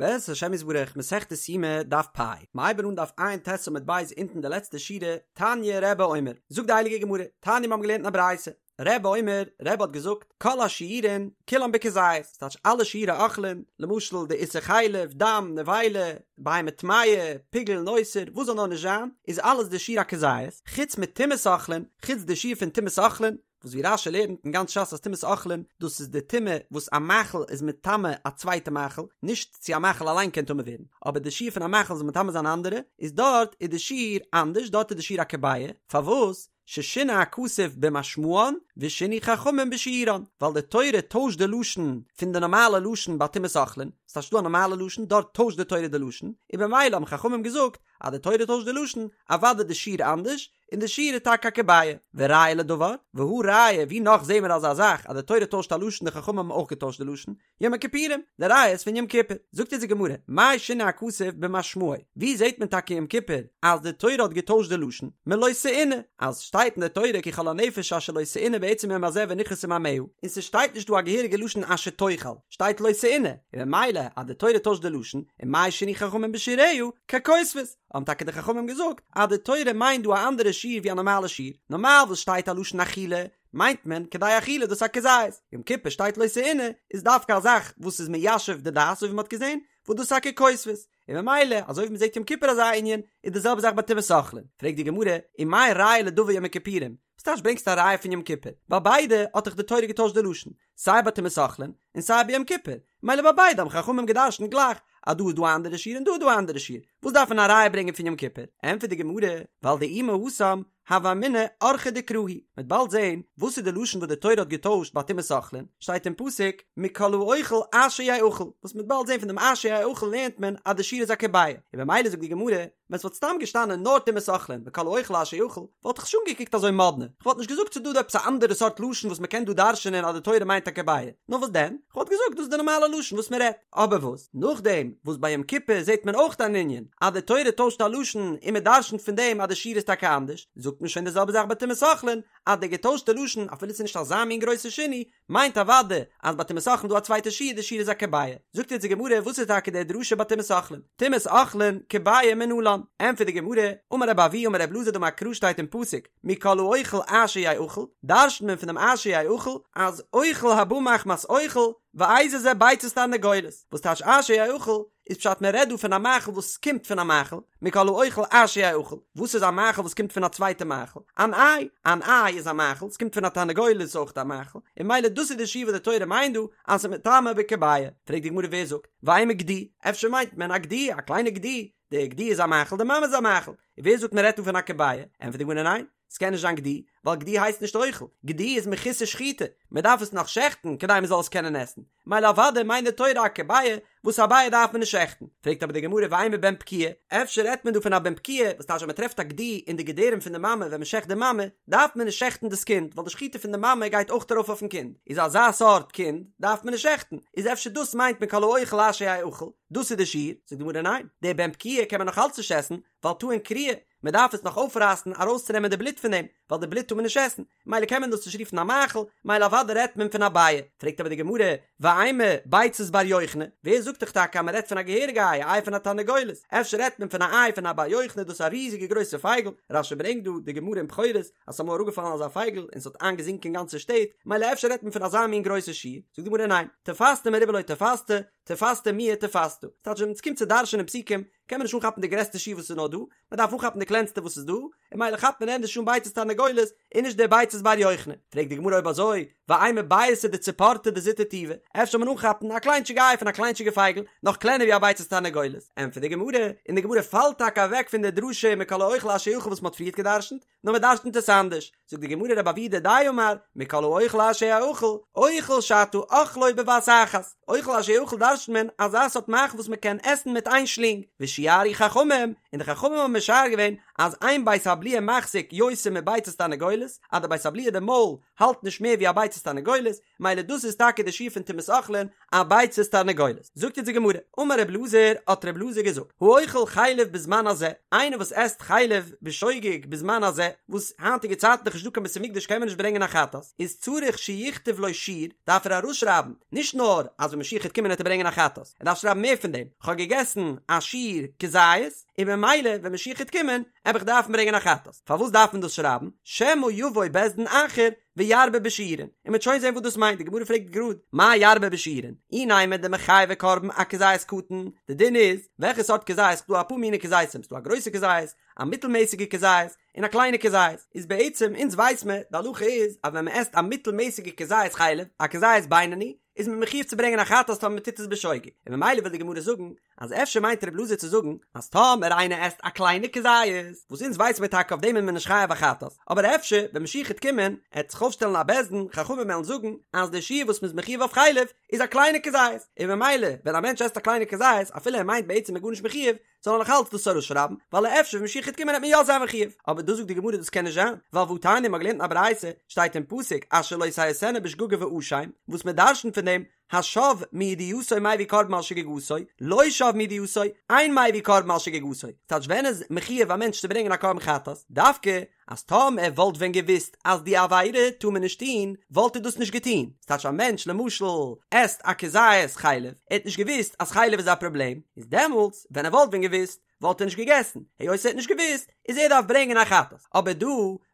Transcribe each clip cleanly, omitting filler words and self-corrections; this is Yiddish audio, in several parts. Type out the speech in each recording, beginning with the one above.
בעזרת השם יתברך, מסכת יומא, דף פ', מ'הייבן אן דף ע"ט עמוד ב' אונטן די לעצטע שורה, תניא רבי אומר, זאגט די הייליגע גמרא, תניא מיר האבן געלערנט אין א ברייתא, רבי אומר, רבי האט געזאגט, כל השיעורין כולן בכזית, ס'טייטש אלע שיעורי אוכלין, למשל די איסור חלב, דם, נבילה, בהמה טמאה, פיגול, נותר, וואס זאל נאר נישט זיין, איז אלעס די שיעור א כזית, חוץ מטומאת אוכלין, חוץ די שיעור פון טומאת אוכלין, וואס ווי רש"י לערנט אין גאנץ ש"ס אז טומאת אוכלין דאס איז די טומאה וואס א מאכל איז מטמא א צווייטע מאכל, נישט צו א מאכל אליין קען טמא ווערן, אבער די שיעור פון א מאכל זאל מטמא זיין אנדערע, איז דארט איז די שיעור אנדערש, דארט איז די שיעור א כביעה, פארוואס? ששינה הכתוב במשמען ושינו חכמים בשיעורן, ווייל די תורה טוישט די לשון פון די נארמאלע לשון ביי טומאת אוכלין, ס'טייטש ס'דא א נארמאלע לשון, דארט טוישט די תורה די לשון, און במילא האבן חכמים געזאגט אז די תורה טוישט די לשון, אוודאי די שיעור אנדערש, און די שיעור איז טאקע א כביעה. וראיה לדבר, והא ראיה, ווי נאך זעהן מיר אזא זאך אז די תורה טוישט א לשון די חכמים האבן אויך געטוישט די לשון, יום הכיפורים, די ראיה איז פון יום כיפור. זאגט אונז די גמרא, מאי שינה הכתוב במשמעו, ווי זעהט מען טאקע יום כיפור אז די תורה האט געטוישט די לשון, מלא תעונה, אז שטייט אין די תורה כי כל הנפש אשר לא תעונה בעצם היום הזה ונכרתה מעמיה, און ס'שטייט נישט דא א געהעריגע לשון אשר תאכל, שטייט לא תעונה, און ממילא אז די תורה טוישט די לשון, און מאי שינו חכמים בשיעוריה, ככותבת. האבן טאקע די חכמים געזאגט אז די תורה מיינט דא א אנדערע שיעור ווי א נארמאלע שיעור, נארמאל וואס שטייט א לשון אכילה מיינט מען כדי אכילה דאס א כזית, יום כיפור שטייט לא תעונה איז דווקא א זאך וואס איז מיישב די דעת אזוי ווי מ'האט געזען וואס דאס איז א ככותבת, און ממילא אזוי ווי מ'זעט יום כיפור אזא ענין איז די זעלבע זאך ביי טומאת אוכלין, פרעגט די גמרא ומאי ראיה לדבר יום הכיפורים, וואס טייטש ברענגסט א ראיה פון יום כיפור? ביי ביידע האט דאך די תורה געטוישט די לשון, סיי ביי טומאת אוכלין און סיי ביי יום כיפור, מילא ביי ביידע האבן חכמים גע'דרש'נט גלייך אז דא איז דא א אנדערע שיעור און דא איז דא א אנדערע שיעור, וואס דארף מען א ראיה ברענגען פון יום כיפור? ענטפערט די גמרא, ווייל דאי מהתם הוה אמינא אורחא דקרא הוא, מ'וועט באלד זען וואס איז די לשון וואס די תורה האט געטוישט ביי טומאת אוכלין, שטייט אין פסוק מכל האוכל אשר יאכל, וואס מ'וועט באלד זען פון דעם אשר יאכל לערנט מען אז די שיעור איז א כביעה, און במילא זאגט די גמרא, ווען ס'וואלט סתם געשטאנען נאר טומאת אוכלין מכל האוכל אשר יאכל, וואלט איך נישט אנגעקוקט אזוי מאדנע, כ'וואלט נישט געזאגט ס'איז דא דא עפעס א אנדערע סארט לשון וואס מ'קען דא דרש'ענען אז די תורה מיינט א כביעה, נאר וואס דען? כ'וואלט געזאגט דאס איז די נארמאלע לשון וואס מ'רעדט. אבער וואס? נאכדעם וואס ביי יום כיפור זעט מען אויך אן ענין אז די תורה טוישט א לשון און מ'דרש'נט פון דעם אז די שיעור איז טאקע אנדערש, זאגט מען שוין די זעלבע זאך ביי טומאת אוכלין אז די געטוישטע לשון אפילו ס'איז נישט אזא מין גרויסע שינוי, מיינט אוודאי אז ביי טומאת אוכלין דא א צווייטע שיעור די שיעור איז א כביעה. זאגט אונז די גמרא וואס איז טאקע די דרשה ביי טומאת אוכלין? טומאת אוכלין כביעה מנלן. ענטפערט די גמרא, אמר רבי אבהו אמר רבי אלעזר דאמר קרא שטייט אין פסוק מכל האוכל אשר יאכל, דרש'נט מען פון דעם אשר יאכל אז אוכל הבא מחמת אוכל ואיזה זה ביצת תרנגולת, וואס טייטש אשר יאכל? איז פשט מען רעדט דא פון א מאכל וואס קומט פון א מאכל, מכל האוכל אשר יאכל, וואס איז א מאכל וואס קומט פון א צווייטע מאכל? אן איי, אן איי איז א מאכל, ס'קומט פון א תרנגולת איז אויך א מאכל, און ממילא דאס איז די שיעור וואס די תורה מיינט דא אז ס'איז מטמא בכביעה. פרעגט די גמרא ווער זאגט, ואימא גדי, אפשר מיינט מען א גדי, א קליינע גדי, די גדי איז א מאכל, די מאמע איז א מאכל, און ווער זאגט מען רעדט דא פון א כביעה? ענטפערט די גמרא ניין, ס'קען נישט זיין גדי, ווייל גדי הייסט נישט אוכל, גדי איז מחוסר שחיטה, מען דארף עס נאך שעכטן כדי מען זאל עס קענען עסן, מילא אוודאי מיינט די תורה א כביעה, וואס א ביעה דארף מען נישט שעכטן, פרעגט אבער די גמרא ואימא בן פקיעה, אפשר רעדט מען דא פון א בן פקיעה, וואס טייטש אז מען טרעפט א גדי אין די געדערים פון די מאמע ווען מען שעכט די מאמע, דארף מען נישט שעכטן דאס קינד, ווייל די שחיטה פון די מאמע גייט אויך ארויף אויפן קינד, איז אזא סארט קינד דארף מען נישט שעכטן, איז אפשר דאס מיינט מען כל האוכל אשר יאכל, דאס איז די שיעור, זאגט די גמרא ניין, די בן פקיעה קען מען נאך אלץ נישט עסן, ווייל טעון קריעה, מען דארף עס נאך אויפרייסן ארויסצונעמען די בלוט פון דעם, ווייל די בלוט טאר מען נישט עסן, מילא קען מען דאס נישט רופן א מאכל, מילא אוודאי רעדט מען פון א ביעה. פרעגט אבער די גמרא, ואימא ביצת בר יוכני, ווער זאגט דיך טאקע אז מען רעדט פון א געהעריגע איי, א איי פון א תרנגולת, אפשר רעדט מען פון א איי פון א בר יוכני, דאס איז א ריזיגע גרויסע פייגל, רש"י ברענגט דא די גמרא אין בכורות אז ס'איז אמאל אראפגעפאלן אזא פייגל און ס'האט איינגעזינקען גאנצע שטעט, מילא אפשר רעדט מען פון אזא מין גרויסע שיעור, זאגט די גמרא ניין, תפסת מרובה לא תפסת, תפסת מועט תפסת, ס'טייטש ווען ס'קומט צו דרש'ענען פסוקים קען מען נישט אנכאפן די גרעסטע שיעור וואס איז נאר דא, מען דארף אנכאפן די קלענסטע וואס איז דא, און מילא כאפט מען ענדערש אן ביצת תרנגולת און נישט די ביצת בר יוכני. פרעגט די גמרא אויב אזוי, ואימא ביעתא דציפורתא דזוטר טובא, אפשר זאל מען אנכאפן א קליינטשיגע איי פון א קליינטשיגע פייגל, נאך קלענער ווי א ביצת תרנגולת? ענטפערט די גמרא, און די גמרא פאלט טאקע אוועק פון די דרשה מכל האוכל אשר יאכל וואס מען האט פריערט געדרשנט, נאר מען דרשנ'ט עס אנדערש, זאגט די גמרא רבי אבהו דידיה אמר, מכל האוכל אשר יאכל, אוכל שאתה אוכלו בבת אחת, אוכל אשר יאכל דרשנ'ט מען אזא סארט מאכל וואס מען קען עסן מיט איין שלינג, ושיערו חכמים, און די חכמים האבן משער געווען. אז אין בית הבליעה מחזיק יותר מביצת תרנגולת, אז די בית הבליעה די מויל האלט נישט מער ווי א ביצת תרנגולת, מילא דאס איז טאקע די שיעור פון טומאת אוכלין, א ביצת תרנגולת. זאגט אונז די גמרא, אמר רב אלעזר, האט רב אלעזר געזאגט, האוכל חלב בזמן הזה, איינער וואס עסט חלב בשוגג בזמן הזה, וואס היינטיגע צייטן איז דאך נישט דא קיין בית המקדש קען מען נישט ברענגען א חטאת, איז צריך שיכתוב לו שיעור, דארף ער ארויסשרייבן, נישט נאר אז ווען משיח העט קומען העט ער ברענגען א חטאת, ער דארף שרייבן מער פון דעם, כ'האב געגעסן א שיעור כזית, און ממילא ווען משיח העט קומען, עב איך דארפן ברענגען א חטאת. פארוואס דארף מען דאס שרייבן? שמא יבוא בית דין אחר וירבה בשיעורין, און מ'וועט שוין זען וואס דאס מיינט, די גמרא פרעגט גראד, מאי ירבה בשיעורין? אי נימא דמיחייבי קרבן אכזית קטן, די דין איז, וועלכע סארט כזית, ס'דא אפאר מיני כזיתים, ס'דא א גרויסע כזית, א מיטלמעסיגע כזית, און א קליינע כזית, איז בעצם אונז ווייס מען, די הלכה איז, אז ווען מ'עסט א מיטלמעסיגע כזית חלב, א כזית בינוני, איז מען מחויב צו ברענגען א חטאת טאמער מ'טוט עס בשוגג, און ממילא וויל די גמרא זאגן, אז אפשר מיינט רב אלעזר צו זאגן אז טאמער איינער עסט א קליינע כזית, וואס אונז ווייס מיר טאקע אויף דעם איז מען נישט חייב א חטאת, אבער אפשר ווען משיח העט קומען העט זיך אויפשטעלן א בית דין חכמים וועלן זאגן אז די שיעור וואס מ'איז מחויב אויף חלב איז א קליינע כזית, און ממילא ווען א מענטש עסט א קליינע כזית אפילו ער מיינט בעצם מ'איז גארנישט מחויב זאל ער נאך אלץ דאס ארויסשרייבן ווייל אפשר ווען משיח העט קומען העט מען יא זיין מחויב, אבער דא זאגט די גמרא דאס קען נישט זיין, ווייל והתניא מ'האט געלערנט אין א ברייתא שטייט אין פסוק אשר לא תעשינה בשגגה ואשם, וואס מ'דרשנ'ט פון דעם השב מידיעתו מביא קרבן על שגגתו, לא שב מידיעתו, אין מביא קרבן על שגגתו. ס'טייטש ווען איז מחויב א מענטש צו ברענגען א קרבן חטאת? דווקא אז טאמער ער וואלט ווען געוואוסט אז די עבירה טאר מען נישט טון, וואלט ער דאס נישט געטון. ס'טייטש א מענטש למשל עסט א כזית חלב, ער האט נישט געוואוסט אז חלב איז א פראבלעם, איז דעמאלטס ווען ער וואלט ווען געוואוסט, וואלט ער נישט געגעסן, היות ער האט נישט געוואוסט, איז ער דארף ברענגען א חטאת. אבער דא,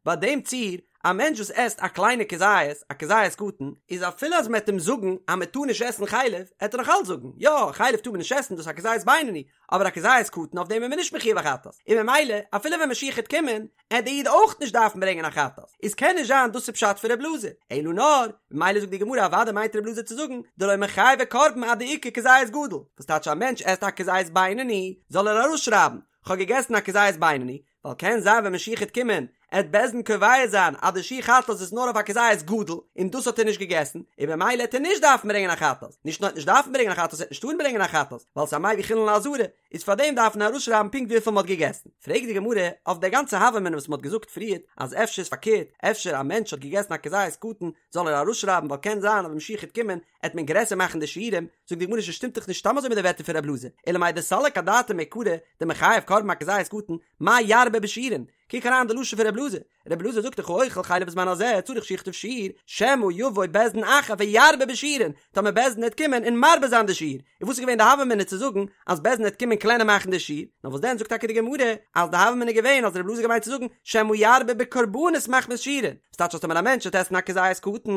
ביי דעם ציור, א מענטש וואס עסט א קליינע כזית, א כזית קטן, איז אפילו אז מען וועט אים זאגן אז מען טאר נישט עסן חלב, עט ער נאך אלץ זאגן, יא, חלב טאר מען נישט עסן, דאס איז א כזית בינוני, אבער א כזית קטן אויף דעם איז מען נישט מחויב א חטאת, און ממילא, אפילו ווען משיח העט קומען, עט די איד אויך נישט דארפן ברענגען א חטאת, איז קען נישט זיין דאס איז פשט פון רב אלעזר, אלא נאר, ממילא זאגט די גמרא אוודאי מיינט רב אלעזר צו זאגן, דלא מיחייבי קרבן עד דאיכא כזית גדול, וואס טייטש א מענטש עסט א כזית בינוני, זאל ער ארויסשרייבן, כ'האב געגעסן א כזית בינוני, ווייל קען זיין ווען משיח העט קומען, עט בית דין קובע זיין אז די שיעור חטאת איז נאר אויף א כזית גדול, און דאס האט ער נישט געגעסן, און במילא עט ער נישט דארפן ברענגען א חטאת, נישט נאר עט נישט דארפן ברענגען א חטאת עט נישט טארן ברענגען א חטאת, ווייל ס'איז א מביא חולין לעזרה, איז פאר דעם דארף מען ארויסשרייבן פונקט וויפיל מ'האט געגעסן. פרעגט די גמרא אויף די גאנצע הוה אמינא וואס מ'האט געזאגט פריערט אז אפשר איז פארקערט, אפשר א מענטש האט געגעסן א כזית קטן זאל ער ארויסשרייבן ווייל קען זיין אז ווען משיח העט קומען עט מען גרעסער מאכן די שיעורים, זאגט די גמרא ס'שטימט דאך נישט סתם אזוי מיט די ווערטער פון רב אלעזר, אלא מאי דסליק אדעתיה מעיקרא דמיחייב קרבן אכזית קטן, מאי ירבה בשיעורין? קוק אריין די לשון פון רב אלעזר, רבי אלעזר זאגט דאך האוכל חלב בזמן הזה צריך שיכתוב שיעור, שמא יבוא בית דין אחר וירבה בשיעורין, טאמער בית דין העט קומען און מרבה זיין די שיעור, און וואס איז געווען די הוה אמינא צו זאגן אז בית דין העט קומען קלענער מאכן די שיעור, נאר וואס דען זאגט טאקע די גמרא אז די הוה אמינא איז געווען אז רבי אלעזר געמיינט צו זאגן שמא ירבה בקרבנות מחמת שיעורין, וואס טייטש אז טאמער א מענטש העט עסן א כזית קטן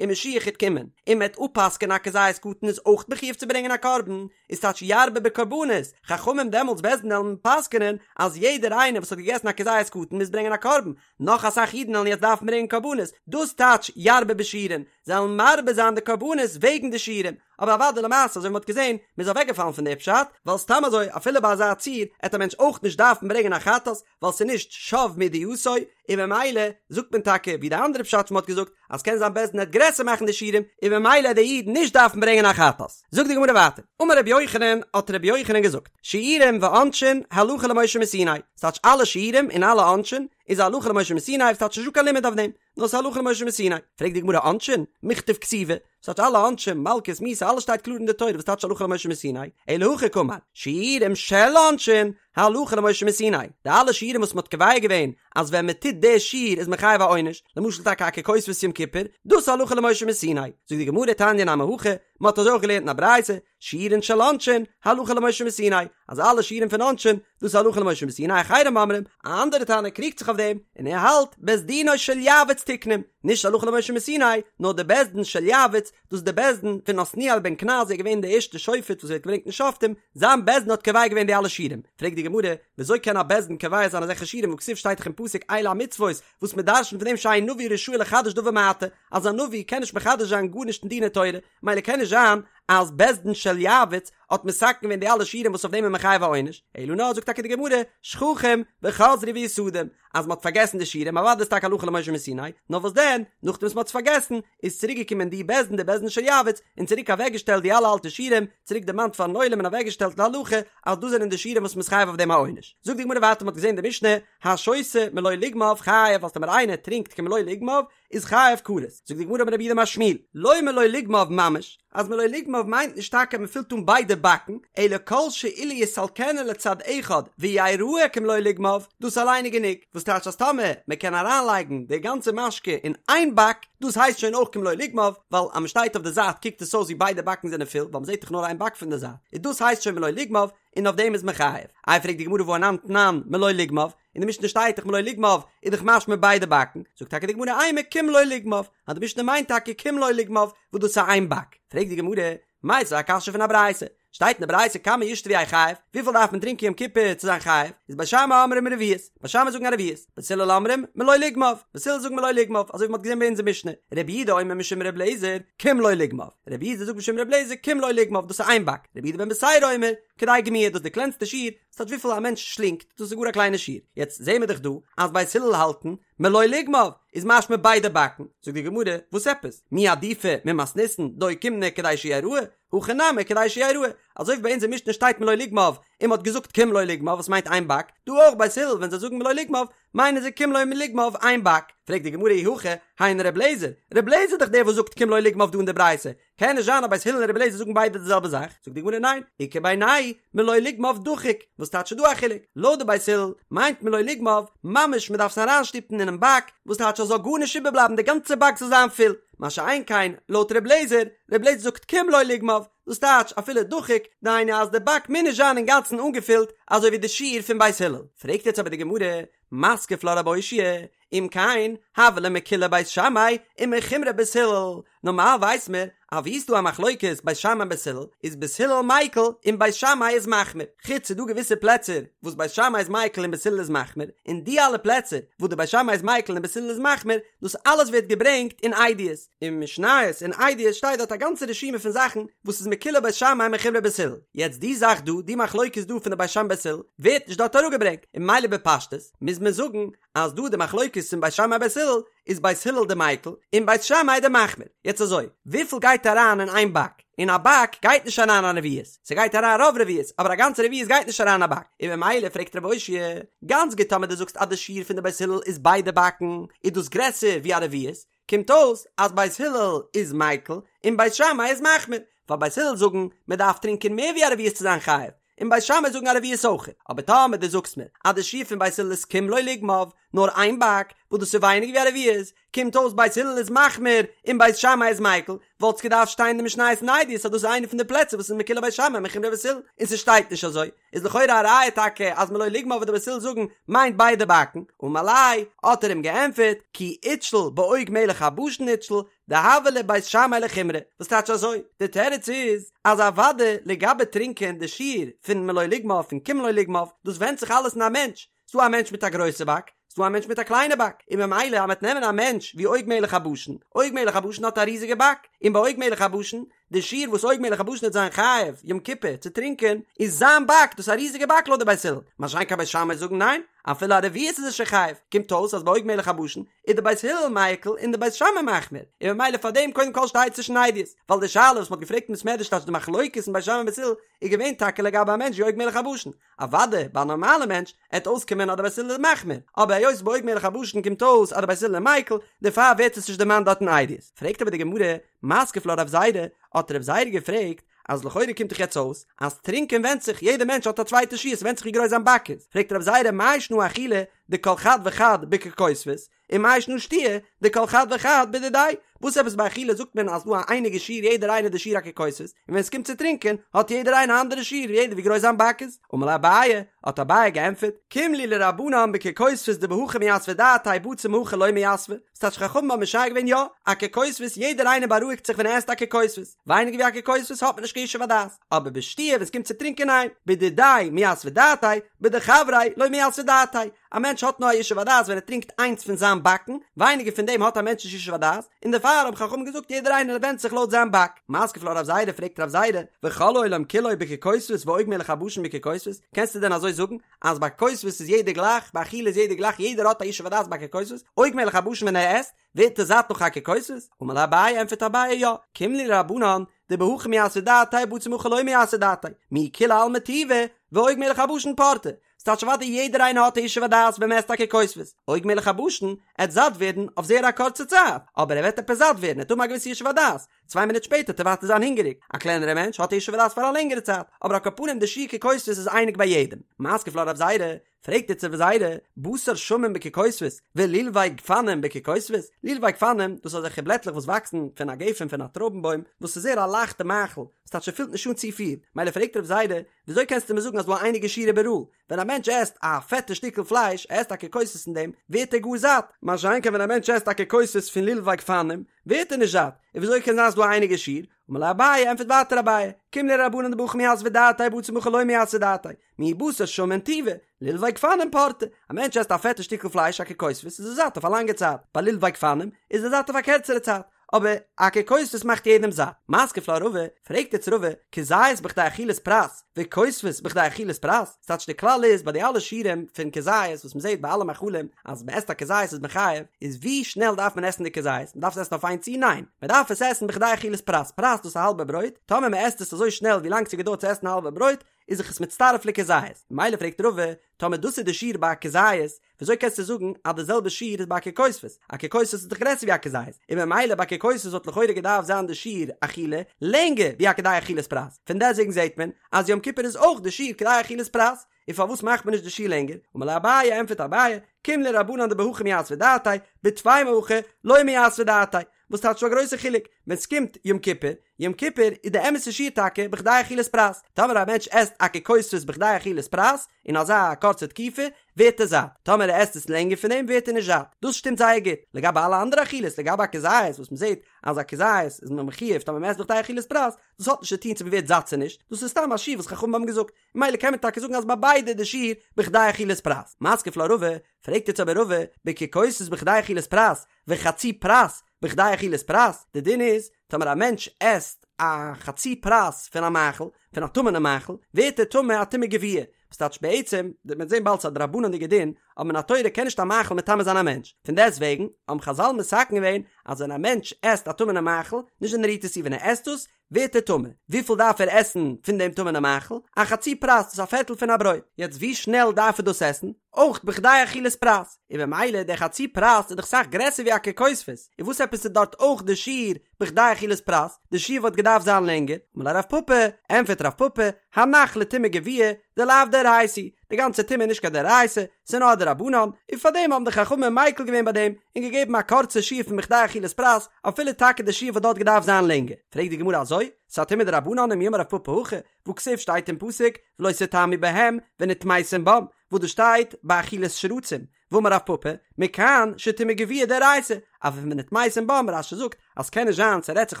און משיח העט קומען און מען העט אפפסק'ענען א כזית קטן איז אויך מחויב צו ברענגען א קרבן, איז טייטש ירבה בקרבנות, חכמים דעמאלטס בית דין עלן פסק'נען אז יעדער איינער וואס האט געגעסן א כזית קטן מוז ברענגען א קרבן, נאך אסאך אידן עלן יעצט דארפן ברענגען קרבנות, דאס טייטש ירבה בשיעורין, זיי עלן מרבה זיין די קרבנות וועגן די שיעורים, אבער אוודאי למעשה אזוי ווי מ'האט געזען, מ'איז אוועקגעפאלן פון די פשט, ווייל סתם אזוי אפילו ביי אזא ציור עט א מענטש אויך נישט דארפן ברענגען א חטאת, ווייל ס'איז נישט שב מידיעתו, און ממילא זאגט מען טאקע ווי די אנדערע פשט וואס מ'האט געזאגט אז קען זיין בית דין עט גרעסער מאכן די שיעורים און ממילא עט די איד נישט דארפן ברענגען א חטאת. זאגט די גמרא ווייטער, אמר רבי יוחנן, האט רבי יוחנן געזאגט, שיעורים ועונשין הלכה למשה מסיני, ס'טייטש אלע שיעורים און אלע עונשין איז הלכה למשה מסיני, ס'טייטש נישטא קיין לימוד אויף דעם, נאר ס'איז הלכה למשה מסיני. פרעגט די גמרא עונשין? מיכתב כתיבי, ס'טייטש אלע עונשים, מלקות, מיתה, אלעס שטייט קלאר אין די תורה, וואס טייטש הלכה למשה מסיני? אלא הכי קאמר, שיעורים של עונשין, הלכה למשה מסיני. די אלע שיעורים וואס מ'האט קובע געווען אז ווען מ'טוט די שיעור איז מען חייב א עונש, למשל טאקע א ככותבת יום כיפור, דאס איז הלכה למשה מסיני. זאגט די גמרא תניא נמי הכי, מ'האט אזוי אויך געלערנט אין א ברייתא, שיעורין של עונשין, הלכה למשה מסיני, אז אלע שיעורים פון עונשין, דאס איז הלכה למשה מסיני, אחרים אומרים, א אנדערע תנא קריגט זיך אויף דעם, און ער האלט, בית דינו של יעבץ תיקנום, נישט הלכה למשה מסיני, נאר די בית דין של יעבץ, דאס איז די בית דין פון עתניאל בן קנז, ער איז געווען די ערשטע שופט וואס ווערט געברענגט אין שופטים, זיין בית דין האט קובע געווען די אלע שיעורים. פרעגט די גמרא, וויאזוי קען א בית דין קובע זיין אזעלכע שיעורים והכתיב שטייט דאך אין פסוק אלה המצוות, וואס מען דרשנ'ט פון דעם שאין נביא רשאי לחדש דבר מעתה, אז א נביא קען נישט מחדש זיין גארנישט אין דיני תורה, מילא קען נישט זיין. אז בית דין של יעבץ האט מתקן געווען די אלע שיעורים וואס אויף דעם איז מען חייב א עונש, אלא נאר זאגט טאקע די גמרא, שכחום וחזרו ויסדום, אז מ'האט פארגעסן די שיעורים, אוודאי איז טאקע הלכה למשה מסיני, נאר וואס דען, נאכדעם וואס מ'האט עס פארגעסן, איז צוריק געקומען די בית דין די בית דין של יעבץ, און צוריק אוועק געשטעלט די אלע אלטע שיעורים, צוריק דערמאנט פארן עולם און אוועק געשטעלט להלכה, אז דאס זענען די שיעורים וואס מ'איז חייב אויף דעם א עונש. זאגט די גמרא ווייטער מ'האט געזען די משנה, השותה מלא לוגמיו חייב אז טאמער איינער טרינקט כמלא לוגמיו, איז חייב כרת. זאגט די גמרא אמר רב יהודה אמר שמואל, לא מלא לוגמיו ממש, אז מלא לוגמיו מיינט נישט טאקע מען פילט אן ביידע באקן, אלא כל שאילו יסלקנה לצד אחד ויראה כמלא לוגמיו, דאס אליין איז גענוג, וואס טייטש אז טאמער מען קען אריינלייגן די גאנצע משקה אין איין באק, דאס הייסט שוין אויך כמלא לוגמיו, ווייל אז מען שטייט אויף די זייט קוקט עס אויס ווי ביידע באקן זענען פול, ווייל מען זעט דאך נאר איין באק פון די זייט, און דאס הייסט שוין מלא לוגמיו, און אויף דעם איז מען חייב. איי פרעגט די גמרא והא אנן תנן מלא לוגמיו, אין די משנה שטייט דאך מלא לוגמיו איז דאך משמע ביידע באקן, זאגט טאקע די גמרא אימא כמלא לוגמיו, אז די משנה מיינט טאקע כמלא לוגמיו וואס דאס איז איין באק, פרעגט די גמרא, מיתיבי א קשיא פון א ברייתא, שטייט אין די ברייתא כמה ישתה ויהא חייב, וויפיל דארף מען טרינקען יום כיפור צו זיין חייב, איז בית שמאי אומרים רביעית, בית שמאי זאגן א רביעית, בית הלל אומרים מלא לוגמיו, בית הלל זאגן מלא לוגמיו, אזוי ווי מען האט געזען ביי אונזער משנה, רבי יהודה אומר משום רבי אליעזר, כמלא לוגמיו, רבי יהודה זאגט משום רבי אליעזר כמלא לוגמיו דאס איז איין באק, רבי יהודה בן בתירא אומר, כדי גמיעה דאס איז די קלענסטע שיעור, ס'טייטש וויפיל א מענטש שלינגט, דאס איז גאר א קליינע שיעור. יעצט זעהן מיר דאך דא אז בית הלל האלטן מלא לוגמיו איז משמע ביידע באקן, זאגט די גמרא, וואס עפעס? מי עדיפא ממתניתין דאוקימנא כדי שיראה, הכא נמי כדי שיראה, אזוי ווי ביי אונזער משנה שטייט מלא לוגמיו און מ'האט געזאגט כמלא לוגמיו וואס מיינט איין באק, דא אויך בית הלל ווען זיי זאגן מלא לוגמיו מיינען זיי כמלא לוגמיו איין באק, פרעגט די גמרא אי הכי היינו ר' אליעזר, ר' אליעזר איז דאך דער וואס זאגט כמלא לוגמיו דא אין די ברייתא, קען נישט זיין אז בית הלל און רבי אליעזר זאגן ביידע די זעלבע זאך, זאגט די גמרא ניין, איכא בינייהו מלא לוגמיו דחוק, וואס טייטש ס'דא א חילוק, לויט די בית הלל מיינט מלא לוגמיו ממש מ'דארף עס אריינשטופן אינעם באק, וואס טייטש אז זאל גארנישט איבערבלייבן די גאנצע באק זאל זיין פול, מה שאין כן לויט רבי אליעזר, רבי אליעזר זאגט כמלא לוגמיו, דאס טייטש אפילו דחוק, דהיינו אז די באק מוז נישט זיין אינגאנצן אנגעפילט אזוי ווי די שיעור פון בית הלל. פרעגט יעצט אבער די גמרא, מתקיף לה רב אושעיא, אם כן, הוה ליה מקולי בית שמאי ומחומרי בית הלל, נארמאל ווייס מיר אז ווי ס'דא א מחלוקת בית שמאי און בית הלל, איז בית הלל מיקל און בית שמאי איז מחמיר, חוץ ס'דא געוויסע פלעצער וואס בית שמאי איז מיקל און בית הלל איז מחמיר, און די אלע פלעצער וואס די בית שמאי איז מיקל און בית הלל איז מחמיר, דאס אלעס ווערט געברענגט אין עדיות, אין משניות אין עדיות שטייט דארט א גאנצע רשימה פון זאכן וואס איז מקולי בית שמאי ומחומרי בית הלל, יעצט די זאך דא, די מחלוקת דא פון די בית שמאי בית הלל, ווערט נישט דארט אראפגעברענגט, און ממילא בפשטות מוז מען זאגן אז דא די מחלוקת פון בית שמאי בית הלל איז בית הלל די מיקל און בית שמאי די מחמיר, יעצט אזוי, וויפיל גייט אריין אין איין באק? אין א באק גייט נישט אריין א רביעית, ס'גייט אריין רוב רביעית, אבער א גאנצע רביעית גייט נישט אריין אין א באק, און ממילא פרעגט רב אושעיא, גאנץ גוט טאמער דו זאגסט אז די שיעור פון די בית הלל איז ביידע באקן, איז דאס גרעסער ווי א רביעית, קומט אויס אז בית הלל איז מיקל און בית שמאי איז מחמיר, ווייל בית הלל זאגן מען דארף טרינקען מער ווי א רביעית צו זיין חייב, און בית שמאי זאגן א רביעית אויך, אבער טאמער דו זאגסט מיר אז די שיעור פון בית הלל איז כמלא לוגמיו, נאר איין באק, וואס דאס איז ווייניגער ווי א רביעית, קומט אויס בית הלל איז מחמיר און בית שמאי איז מיקל, וואלט עס געדארפט שטיין אין די משניות אין עדיות אז דאס איז איינע פון די פלעצער וואס איז מקולי בית שמאי ומחומרי בית הלל, און ס'שטייט נישט אזוי, איז לכאורה א ראיה טאקע אז מלא לוגמיו וואס די בית הלל זאגן מיינט ביידע באקן, אמר ליה, האט ער אים געענטפערט, כי אתשיל בעוג מלך הבשן אתשיל, דהוה להו בית שמאי לחומרא, וואס טייטש אזוי? די תירוץ איז אז אוודאי לגבי טרינקען די שיעור פון מלא לוגמיו פון כמלא לוגמיו, דאס ווענדט זיך אלעס אין א מענטש, ס'דא א מענטש מיט א גרויסע באק, ס'דא א מענטש מיט א קליינע באק, און ממילא אז מ'וועט נעמען א מענטש ווי עוג מלך הבשן, עוג מלך הבשן האט א ריזיגע באק, און ביי עוג מלך הבשן, די שיעור וואס עוג מלך הבשן וועט זיין חייב יום כיפור צו טרינקען, איז זיין באק, דאס איז א ריזיגע באק לויט די בית הלל, מה שאין כן בית שמאי זאגן ניין, אפילו א רביעית איז ער שוין חייב, קומט אויס אז ביי עוג מלך הבשן איז די בית הלל מיקל און די בית שמאי מחמיר, און ממילא פאר דעם קודם כל שטייט עס נישט אין עדיות, ווייל די שאלה וואס מ'האט געפרעגט אין בית מדרש טייטש די מחלוקת אין בית שמאי און בית הלל איז געווען טאקע לגבי א מענטש ווי עוג מלך הבשן, אוודאי ביי א נארמאלע מענטש עט אויסקומען אז די בית הלל איז מחמיר, אבער היות ביי עוג מלך הבשן קומט אויס אז די בית הלל איז מיקל, דערפאר ווערט עס נישט דערמאנט דארט אין עדיות. פרעגט אבער די גמרא, מתקיף לה רב זירא, האט רב זירא געפרעגט, אז לכאורה קומט דאך יעצט אויס אז טרינקען ווענדט זיך, יעדע מענטש האט א צווייטע שיעור, ס'ווענדט זיך ווי גרויס זיין באק איז, פרעגט רב זירא מאי שנא אכילה דכל חד וחד בככותבת, ומאי שנא שתיה דכל חד וחד בדידיה, וואס עפעס ביי אכילה זאגט מען אז דא א אייניגע שיעור יעדער איינער די שיעור א ככותבת, און ווען עס קומט צו טרינקען האט יעדער איינער א אנדערע שיעור יעדער ווי גרויס זיין באק איז, אמר ליה אביי, האט אביי געענטפערט, קים להו לרבנן בככותבת דבהכי מיתבא דעתיה בציר מהכא לא מיתבא, ס'טייטש חכמים האבן משער געווען יא, א ככותבת יעדער איינער בארואיגט זיך ווען ער עסט א ככותבת, ווייניגער ווי א ככותבת האט מען נישט קיין ישוב הדעת, אבער בשתיה ווען עס קומט צו טרינקען ניין, בדידיה מיתבא דעתיה. בדחבריה לא מיתבא דעתיה, א מענטש האט נאר א ישוב הדעת ווען ער טרינקט איינס פון זיין באקן, ווייניגער פון דעם האט א מענטש נישט ישוב הדעת, און דערפאר האבן חכמים געזאגט יעדער איינער ווענדט זיך לויט זיין באק. מתקיף לה רב זירא פרעגט רב זירא, וכל העולם כולו בככותבת ועוג מלך הבשן בככותבת, קענסטו דען אזוי זאגן אז ביי כותבת איז יעדער גלייך, ביי אכילה איז יעדער גלייך, יעדער האט א ישוב הדעת ביי ככותבת, עוג מלך הבשן ווען ער עסט, ווערט ער זאט נאך א ככותבת? אמר ליה אביי, ענטפערט אביי יא, קים להו לרבנן, דבהכי מיתבא דעתיה בציר מהכא לא מיתבא דעתיה, מיהו כולי עלמא טובא, ועוג מלך הבשן פורתא. ס'טייטש אוודאי יעדער איינער האט א ישוב הדעת ווען מ'עסט א ככותבת, עוג מלך הבשן עט זאט ווערן אויף זייער א קורצע צייט, אבער ער וועט עפעס זאט ווערן, ער וועט האבן א געוויסע ישוב הדעת, צוויי מינוט שפעטער וועט ער ווייטער זיין הונגעריג, א קלענערע מענטש האט א ישוב הדעת פאר א לענגערע צייט, אבער על כל פנים די שיעור ככותבת איז אייניג ביי יעדעם. מתקיף לה רב זירא, פרעגט איצט רב זירא, בשר שמן בככותבת ולולבי גפנים בככותבת, לולבי גפנים, דאס איז אזעלכע בלעטלעך וואס וואקסן פון א גפן פון א טרויבן בוים, וואס איז זייער א לייכטע מאכל, ס'טייטש ס'פילט נישט אן צופיל, מילא פרעגט רב זירא, וויאזוי קענסטו מיר זאגן אז ס'דא א אייניגע שיעור איבעראל? ווען א מענטש עסט א פעטע שטיקל פלייש, ער עסט א ככותבת פון דעם, ווערט ער גאר זאט, מה שאין כן ווען א מענטש עסט א ככותבת פון לולבי גפנים, ווערט ער נישט זאט, און וויאזוי קען זיין אז ס'דא א אייניגע שיעור? אמר ליה אביי, ענטפערט ווייטער אביי, קים להו לרבנן דבהכי מיתבא דעתיה בציר מהכא לא מיתבא דעתיה, מיהו בשר שמן טובא, לולבי גפנים פורתא, א מענטש עסט א פעטע שטיקל פלייש א ככותבת איז ער זאט אויף א לאנגע צייט, ביי לולבי גפנים איז ער זאט אויף א קערצערע צייט, אבער א ככותבת מאכט יעדעם זאט. מתקיף לה רבא, פרעגט איצט רבא, כזית בכדי אכילת פרס, וכותבת בכדי אכילת פרס, ס'טייטש די כלל איז ביי די אלע שיעורים פון כזית וואס מ'זעט ביי אלע מאכלים אז מ'עסט א כזית איז מען חייב, איז ווי שנעל דארף מען עסן די כזית? מ'דארף עס עסן אויף איין צי? ניין! מ'דארף עס עסן בכדי אכילת פרס, פרס דאס איז א האלבע ברויט, טאמער מ'עסט עס אזוי שנעל ווי לאנג ס'געדויערט צו עסן א האלבע ברויט, איז זיך עס מצטרף לכזית, ממילא פרעגט רבא, טאמער דאס איז די שיעור ביי א כזית, וויאזוי קענסטו זאגן אז די זעלבע שיעור איז ביי א ככותבת? א ככותבת איז דאך גרעסער ווי א כזית, און ממילא ביי ככותבת וואלט לכאורה געדארפט זיין די שיעור אכילה לענגער ווי א כדי אכילת פרס, פון דעסטוועגן זעט מען אז יום כיפור איז אויך די שיעור כדי אכילת פרס, און פארוואס מאכט מען נישט די שיעור לענגער? אמר ליה אביי, ענטפערט אביי, קים להו לרבנן דבהכי מיתבא דעתיה, בטפי מהכא לא מיתבא דעתיה, וואס טייטש ס'דא א גרויסע חילוק ווען ס'קומט יום כיפור, יום כיפור איז די אמת'ע שיעור טאקע בכדי אכילת פרס, טאמער א מענטש עסט א ככותבת בכדי אכילת פרס אין אזא קורצע תקופה ווערט ער זאט, טאמער ער עסט עס לענגער פון דעם ווערט ער נישט זאט, דאס שטימט זייער גוט, לגבי אלע אנדערע אכילות, לגבי א כזית וואס מ'זעט אז א כזית איז מען מחויב טאמער מ'עסט בכדי אכילת פרס, דאס האט נישט צו טון צו מ'ווערט זאט צו נישט, דאס איז סתם א שיעור וואס חכמים האבן געזאגט, ממילא קען מען טאקע זאגן אז ביי ביידע איז די שיעור בכדי אכילת פרס. מתקיף לה רבא, פרעגט יעצט אבער רבא, בככותבת בכדי אכילת פרס, וחצי פרס בכדי אכילת פרס, די דין איז, טאמער א מענטש עסט א חצי פרס פון א מאכל, פון א טמא'נע מאכל, ווערט ער טמא א טומאה גבוהה, וואס טייטש בעצם, וועט מען זען באלד ס'איז א דרבנן'דיגע דין, אבער מן התורה קען נישט א מאכל מטמא זיין א מענטש, פון דעסט וועגן האבן חזל מתקן געווען אז ווען א מענטש עסט א טמא'נע מאכל, נישט ווען ער רירט עס צו, ווען ער עסט עס, ווערט ער טמא. וויפיל דארף ער עסן פון דעם טמא'נע מאכל? א חצי פרס, דאס איז א פערטל פון א ברויט. יעצט ווי שנעל דארף ער דאס עסן? אויך בכדי אכילת פרס. און במילא דער חצי פרס איז דאך סאך גרעסער ווי א ככותבת, און וואס עפעס איז דארט אויך די שיעור בכדי אכילת פרס? די שיעור וואלט געדארפט זיין לענגער. אמר ליה רב פפא, ענטפערט רב פפא, הנח לטומאה גבוהה, דלאו דאורייתא, די גאנצע טומאה איז נישט קיין דאורייתא, ס'איז נאר א דרבנן, און פארדעם האבן די חכמים מיקל געווען ביי דעם, און געגעבן א קורצע שיעור פון בכדי אכילת פרס, אפילו טאקע די שיעור וואלט דארט געדארפט זיין לענגער. פרעגט די גמרא אזוי? ס'איז א טומאה דרבנן ומי אמר רב פפא הכי, והכתיב שטייט אין פסוק, ולא תטמאו בהם, ונטמאתם בם, וואס דאס שטייט ביי אכילת שרצים, ואמר רב פפא, מכאן שטומאה גבוהה דאורייתא, אבער פון ונטמאתם בם, רש"י זאגט אז ס'קען נישט זיין ס'רעדט זיך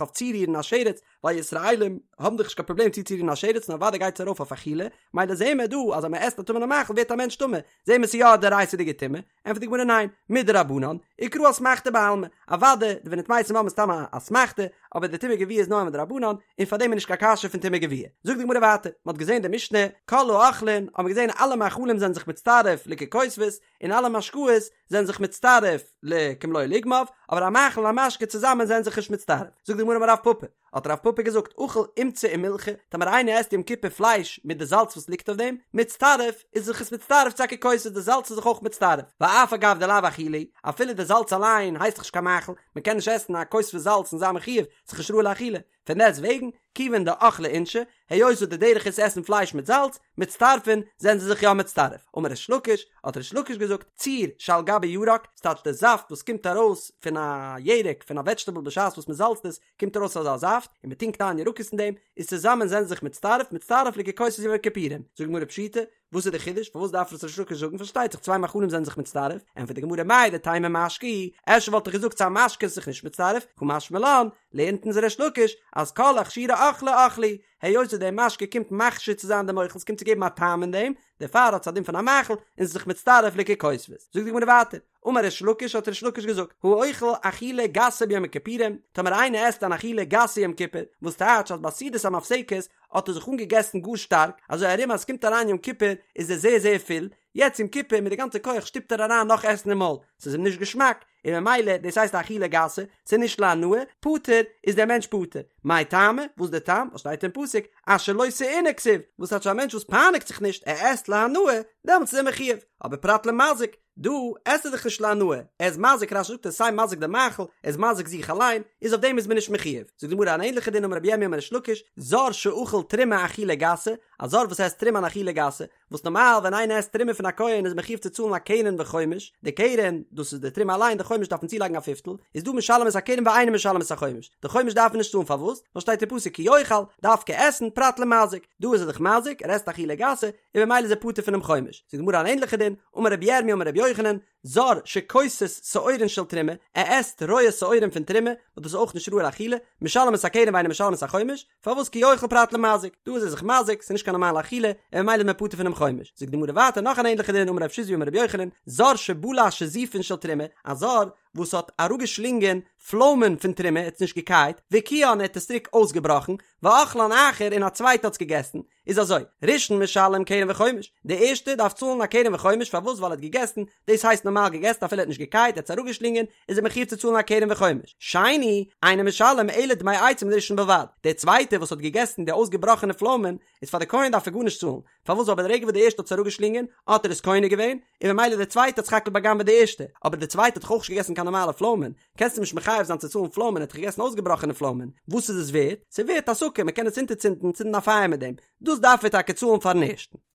אויף צורירן א שרץ, ווייל ישראלים האבן דאך נישט קיין פראבלעם צוצורירן א שרץ נאר אוודאי גייט עס ארויף אויף אכילה, מילא זעהן מיר דא אז אז מען עסט א טמא'נע מאכל ווערט א מענטש טמא, זעהן מיר ס'איז יא א דאורייתא'דיגע טומאה, ענטפערט די גמרא ניין, מדרבנן, וקרא אסמכתא בעלמא, אוודאי די ונטמאתם בם איז סתם א אסמכתא, אבער די טומאה גבוהה איז נאר מדרבנן, און פארדעם איז נישט קיין קשיא פון טומאה גבוהה. זאגט די גמרא ווייטער, מען האט געזעהן די משנה, כל האוכלין, האט מען געזעהן אלע מאכלים זענען זיך מצטרף לככותבת, און אלע משקאות זענען זיך מצטרף לכמלא לוגמיו, אבער א מאכל און א משקה צוזאמען זענען זיך נישט מצטרף. זאגט די גמרא אמר רב פפא, האט רב פפא געזאגט, אכל אומצא ומילחא, טאמער איינער עסט יום כיפור פלייש מיט די זאלץ וואס ליגט אויף דעם, מצטרף, איז זיך עס מצטרף צו א ככותבת, די זאלץ איז זיך אויך מצטרף, ואף על גב דלאו אכילה, אפילו די זאלץ אליין הייסט דאך נישט קיין מאכל, מען קען נישט עסן א כותבת זאלץ און זיין מחויב, ס'איז נישט ראוי לאכילה, פון דעסט וועגן, כיוון דאכלי אינשי, היות וואס די דרך איז עסן פלייש מיט זאלץ, מצטרפין, זענען זיי זיך יא מצטרף. אמר ריש לקיש, האט ריש לקיש געזאגט, ציר שעל גבי ירק, ס'טייטש די זאפט וואס קומט ארויס פון א ירק, פון א וועדזשטעבל בשעת וואס מ'זאלצט עס, קומט ארויס אזא זאפט, און מ'טונקט איין ירקות אין דעם, איז צוזאמען זענען זיי זיך מצטרף, מצטרף לככותבת יום הכיפורים. זאגט די גמרא פשיטא, וואס איז די חידוש? פארוואס דארף עס ריש לקיש זאגן? פארשטייט זיך צוויי מאכלים זענען זיך מצטרף, ענטפערט די גמרא מהו דתימא משקה הוא, אפשר וואלט איך געזאגט ס'איז א משקה איז זיך נישט מצטרף, קא משמע לן, לערנט אונז ריש לקיש אז כל אכשורי אוכלא אוכלא הוא, היות וואס דער משקה קומט מכשיר צו זיין דעם אוכל, ס'קומט צו געבן א טעם אין דעם, דערפאר האט עס א דין פון א מאכל און ס'איז זיך מצטרף לככותבת. זאגט די גמרא ווייטער, אמר ריש לקיש האט ריש לקיש געזאגט, האוכל אכילה גסה ביום הכיפורים, טאמער איינער עסט אן אכילה גסה יום כיפור, וואס טייטש אז ביי סעודת המפסקת האט ער זיך אנגעגעסן גאר שטארק, אזוי ארום אז עס קומט אריין יום כיפור איז ער זייער זייער פול, יעצט יום כיפור מיט די גאנצע כח שטופט ער אריין נאך עסן אין מויל, ס'איז אים נישט געשמאק, און ממילא דאס הייסט אכילה גסה, ס'איז נישט להנאה, פטור, איז דער מענטש פטור. מאי טעמא, וואס דער טעם, וואס שטייט אין פסוק, אשר לא תעונה כתיב, וואס טייטש א מענטש וואס פייניגט זיך נישט, ער עסט להנאה, דעמאלטס איז ער מחויב, אבער פרט למזיק, דא עסט ער דאך נישט להנאה, ער איז מזיק, רש"י זאגט ער איז סיי מזיק די מאכל, ער איז מזיק זיך אליין, איז אויף דעם איז מען נישט מחויב. זאגט די גמרא אן ענליכע דין אמר רבי ירמי' אמר ריש לקיש, זר שאכל תרומה אכילה גסה, א זר וואס עסט תרומה אן אכילה גסה, וואס נארמאל ווען איינער עסט תרומה פון א כהן איז מחויב צו צאלן א קרן וחומש, די קרן, דאס איז די תרומה אליין, די חומש דארף מען צולייגן א פיפטל, איז דא משלם את הקרן ואינו משלם את החומש, די חומש דארף מען נישט צאלן פארוואס? ווייל שטייט אין פסוק כי יאכל, דווקא עסן, פרט למזיק, דא איז ער דאך מזיק, ער עסט אכילה גסה, און ממילא איז ער פטור פונעם חומש. זאגט די גמרא אן ענליכע דין, אמר רבי ירמי' אמר רבי יוחנן, זר שכוסס שעורין של תרומה, ער עסט רויע שעורים פון תרומה, וואס דאס איז אויך נישט ראוי לאכילה, משלם את הקרן ואינו משלם את החומש, פארוואס כי אוכל פרט למזיק, דא איז ער זיך מזיק, ס'איז נישט קיין נארמאלע אכילה, און ממילא איז מען פטור פונעם חומש. זאגט די גמרא ווייטער נאך אן ענליכע דין, אמר רב שיזבי אמר רבי יוחנן, זר שבלע שזיפין של תרומה, א זר וואס האט אראפגעשלינגען פלוימען פון תרומה, ער האט עס נישט געקייט, והקיאן ער האט עס צוריק אויסגעבראכן, ואכלן אחר און א צווייטער האט עס געגעסן, איז אזוי, ראשון משלם קרן וחומש, די ערשטע דארף צאלן א קרן וחומש, פארוואס ווייל ער האט געגעסן, דאס הייסט נארמאל געגעסן אפילו ער האט נישט געקייט, ער האט עס אראפגעשלינגען, איז ער מחויב צו צאלן א קרן וחומש. שני, אינו משלם אלא דמי עצים לראשון בלבד, דער צווייטער וואס האט געגעסן די אויסגעבראכענע פלוימען, איז פאר די כהן דארף ער גארנישט צאלן, פארוואס ווייל ברגע וואס די ערשטע האט עס אראפגעשלינגען, האט ער עס קונה געווען, און ממילא דער צווייטער האט סך הכל בא'גנב'עט די ערשטע, אבער דער צווייטער האט דאך אויך נישט געגעסן קיין נארמאלע פלוימען, קענסט אים נישט מחייב זיין צו צאלן פלוימען, ער האט דאך געגעסן אויסגעבראכענע פלוימען, וואס איז עס ווערט? ס'איז ווערט הסקה, מ'קען עס אונטערצינדן, צינדן א פייער מיט דעם, דאס דארף ער טאקע צאלן פארן ערשטן.